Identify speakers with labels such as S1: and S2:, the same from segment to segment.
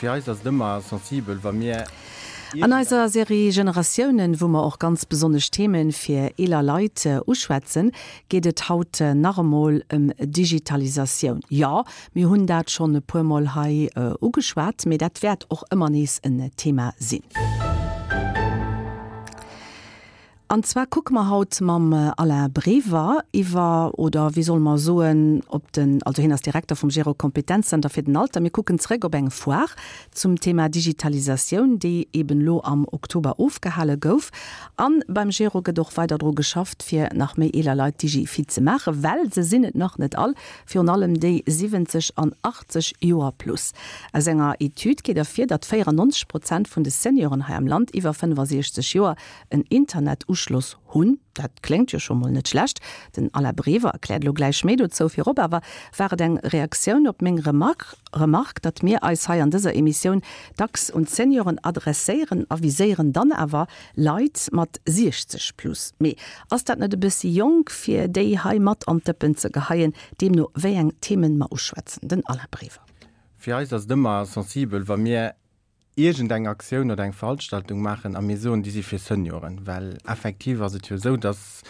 S1: Fir eis ass et ëmmer sensibel, wa mir
S2: An eiser Serie Generatiounen, wou mer och ganz besonnesch Themen fir eeler Leit uschwätzen, geet et haut nach emol ëm Digitalisatioun. Jo, mir hunn dat schonn e puer Mol hei ugeschwat, mee dat wäert och ëmmer nees en Thema sinn. An zwar kucke mer haut mam Alain Brever iwwer, oder wéi solle mer soen, op den, also hien ass Direkter vum Gero Kompetenzzenter fir den Alter. Mir kucken zréck op eng Foire zum Thema Digitalisatioun, déi eben elo am Oktober ofgehale gouf. A beim Gero gëtt och weider dru geschafft, fir nach méi eeler Leit digifit ze maachen, well se sinn et nach net all, virun allem déi 70 an 80 Joer plus. Aus enger Etüd geet ervir, datt 94 Prozent vun de Senioren hei am Land iwwer 65 Joer en Internetuschloss hunn. Dat kléngt jo scho mol net schlecht. Den Alain Brever erkläert elo gläich méi dozou. Virop awer war et eng Reaktioun op meng Remark, Remark, datt mir eis hei an dëser Emissioun dacks un d'Senioren adresséieren a viséieren dann awer Leit mat 60 plus. Mee ass dat net e bëssi jonk, fir déi hei mat an d'Dëppen ze geheien, deemno wéi eng Themen mer uschwätzen? Den Alain Brever.
S1: Fir eis ass et ëmmer sensibel, wa mir iergend eng Aktioun oder eng Veranstaltung maachen a mir soen, déi si fir Senioren, well effektiv ass et jo esou, dass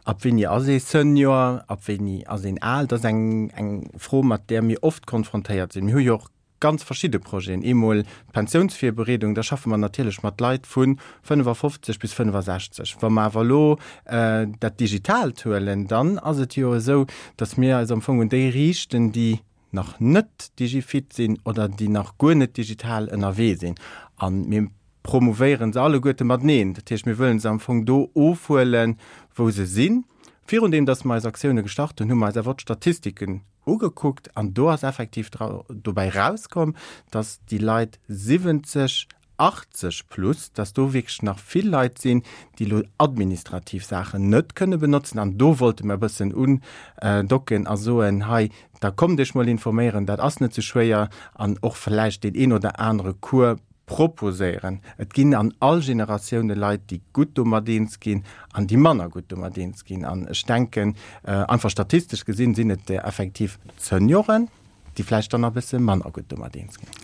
S1: ab wéini ass ee Senior, ab wéini ass een al, dat ass eng, eng Fro, mat där mir oft konfrontéiert sinn. Mir hu jo och ganz verschidde Projeten, eemol d'Pensiounsvirbereedung, da schaffe mer natierlech mat Leit vu 55 bis 65. Wa mer awer elo dat Digitaalt huelen, dann ass et jo esou, dass mir eis am Fong un déi riichten, déi nach net digifit sinn oder déi nach guer net digital ënnerwee sinn. A mir promouvéiere se alleguerte mateneen. Dat heescht, mir wëllen se am Fong do ofhuelen, wou se sinn. Virun deem, datt mer eis Aktioune gestart hunn, hu mer eis awer och d'Statistiken ugekuckt an do ass effektiv dobäi rauskomm, datt déi Leit 70 80 plus, dass do wierklech nach vill Leit sinn, déi elo administrativ Saachen net kënne benotzen. An do wollte mer e bëssen undocken a soen, hei, da kommt Iech mol informéieren, dat ass net sou schwéier, an och vläicht deen een oder anere Cours proposéieren. Et ginn an all Generatioune Leit, déi gutt domat eens ginn an déi manner gutt domat eens ginn. An ech denken, einfach statistesch gesinn, sinn et effektiv d'Senioren, déi vläicht dann nach e bësse manner gutt domat eens ginn.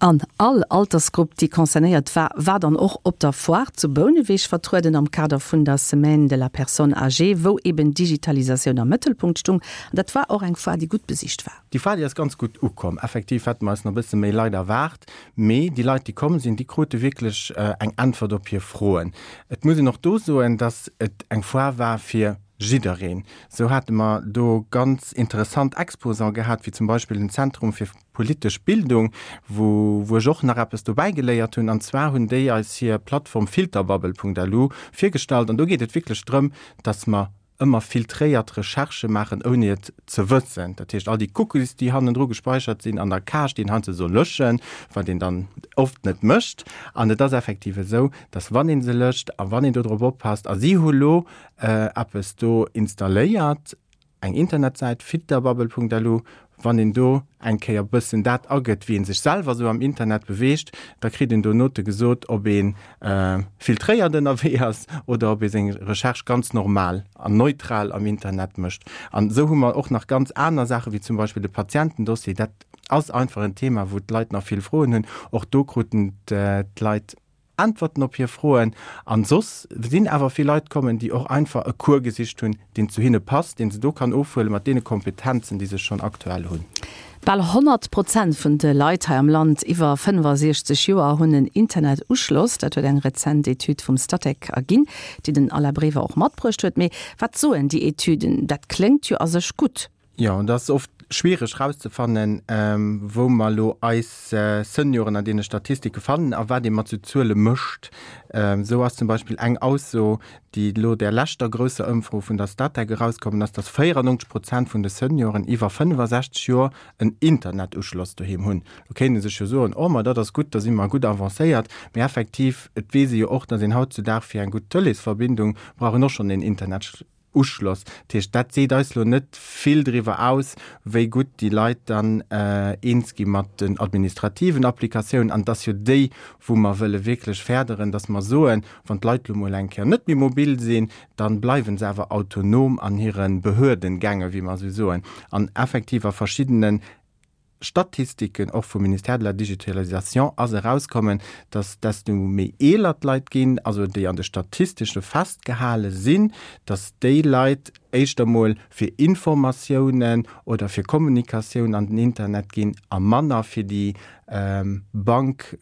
S2: An all Altersgrupp, déi concernéiert war, war dann och op der Foire zu Bouneweg vertrueden am Kader vun der Semaine de la personne âgée, wou eben Digitalisatioun am Mëttelpunkt stung. An dat war och eng Foire, déi gutt besicht war.
S1: Déi Foire, déi ass ganz gutt ukomm. Effektiv hätte mer eis nach e bësse méi Leit erwaart, mee déi Leit, déi komm sinn, déi krute wierklech eng Äntwert op hir Froen. Et muss een och do soen, dass et eng Foire war fir jiddereen. Sou hate mer do ganz interessant Exposants gehat, wéi zum Beispill den Zentrum fir politesch Bildung, wou wou ech och nach eppes dobäi geléiert hunn. An zwar hunn déi eis hir Plattform filterbubble.lu virgestallt. An do geet et wierklech drëm, dass mer ëmmer filtréiert Recherchë maachen, ouni et ze wëssen. Dat heescht, all déi Cookies, déi hannendru gespeichert sinn an der Cache, déi een heiansdo soll löschen, wat een dann oft net mécht. An et ass effektiv esou, dass wann ee se löscht a wann een do drop oppasst, a si hu lo eppes do installéiert, eng Internetsäit, filterbubble.lu, wann een do eng Kéier bëssen dat agëtt, wéi ee sech selwer esou am Internet beweegt, da kritt een do Note gesot, ob ee filtréiert ënnerwee ass oder ob ee seng Recherche ganz normal an neutral am Internet mécht. An esou hu mer och nach ganz aner Saachen, wéi zum Beispill de Patientendossier. Dat ass einfach en Thema, wou d'Leit nach vill Froen hunn. Och do kruten d'Leit Äntwerten op hir Froen. An soss sinn awer vill Leit kommen, déi och einfach e Cours gesicht hunn, deen zu hinne passt, deen se do kann ofhuelen, mat deene Kompetenzen, déi se schonn aktuell hunn.
S2: Bal 100 Prozent vun de Leit hei am Land iwwer 65 Joer hunn en Internetuschloss. Dat huet eng rezent Etüd vum Statec erginn, déi den Alain Brever och matbruecht huet. Mee wat soen déi Etüden? Dat kléngt jo a sech gutt.
S1: Jo, et ass oft schwiereg rauszefannen, wou mer elo eis Senioren an deene Statistike fannen a wat ee mat sou Zuele mécht. Esou ass zum Beispill eng Ausso, déi elo der leschter grousser Ëmfro vun der Statec erauskommen ass, dass 94 Prozent vun de Senioren iwwer 65 Joer en Internetuschloss doheem hunn. Lo kéint ee sech jo soen, oh ma dat ass gutt, da si mer gutt avancéiert. Mee effektiv, et weess ee jo och, dass een hautzudag fir eng gutt Tëleesverbindung brauch een och schonn een Internet. Uschloss. Dat heescht, dat seet eis elo net vill driwwer aus, wéi gutt déi Leit dann eens gi mat den administrativen Applikatiounen. An et ass jo déi, wou mer wëlle wierklech férderen, dass mer soen, wann d'Leit elo mol eng Kéier net méi mobil sinn, da bleiwe se awer autonom an hire Behördengänge, wéi mer esou soen. An effektiv a verschiddenen. Statistiken, och vum Ministère de la Digitalisation ass erauskommen, dass desto méi eeler d'Leit ginn, also déi an de Statistesche festgehale sinn, dass déi Leit éischter mol fir Informatiounen oder fir Kommunikatioun an den Internet ginn a manner fir déi Bank,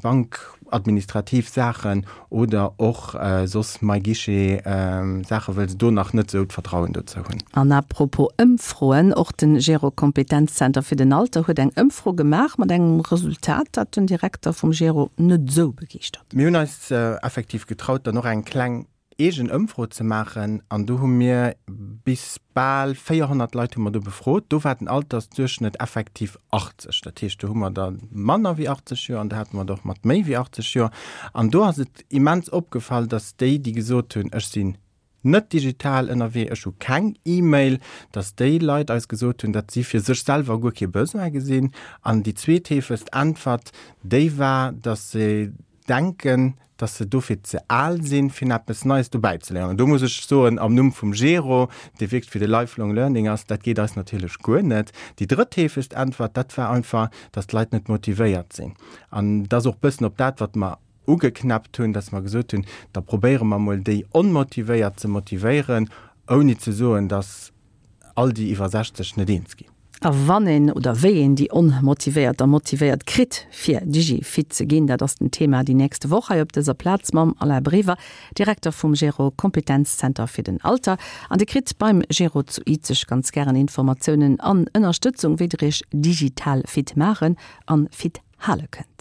S1: bankadministrativ Saachen oder och soss MyGuichet Saachen, wëll se do nach net esou d'Vertrauen dozou hunn.
S2: An à propos Ëmfroen, och de Gero Kompetenzzenter fir den Alter huet eng Ëmfro gemaach mat engem Resultat, dat den Direkter vum Gero net esou begeeschtert.
S1: Mir hunn eis effektiv getraut, dann och eng kleng eegen Ëmfro ze maachen an do hu mir bis bal 400 Leit hu mer do befrot. Do war den Altersduerchschnëtt effektiv 80. Dat heescht, do hu mer der manner wéi 80 Joer an do hate mer der och mat méi wéi 80 Joer. An do ass et immens opgefall, datt déi, déi gesot hunn, ech sinn net digital ënnerwee, ech hu keng E-Mail, datt déi Leit eis gesot hunn, datt si fir sech selwer guer kee Besoin gesinn. An déi zweetheefegst Äntwert, déi war, datt se denken, dass se dofir ze al sinn, fir eppes Neies dobäi ze léieren. An do muss ech soen, am Numm vum Gero, dee wierklech fir de Lifelong Learning ass, dat geet eis natierlech guer net. Déi drëttheefegst Äntwert, dat war einfach, dass d'Leit net motivéiert sinn. An dat ass och e bëssen op dat, wat mer ugeknäppt hunn, dass mer gesot hunn, da probéiere mer emol, déi Onmotivéiert ze motivéieren, ouni ze soen, dass all déi iwwer 60 net eens ginn.
S2: A wann een oder wéi een déi Onmotivéiert da motivéiert kritt, fir Digi-fit ze ginn, dat ass den Thema déi nächste Woch hei op dëser Plaz mam Alain Brever, Direkter vum Gero Kompetenzzenter fir den Alter. An Dir kritt beim Gero zu Izeg ganz gären Informatiounen an Ënnerstëtzung, wéi der Iech digital fit maachen an fit hale kënnt.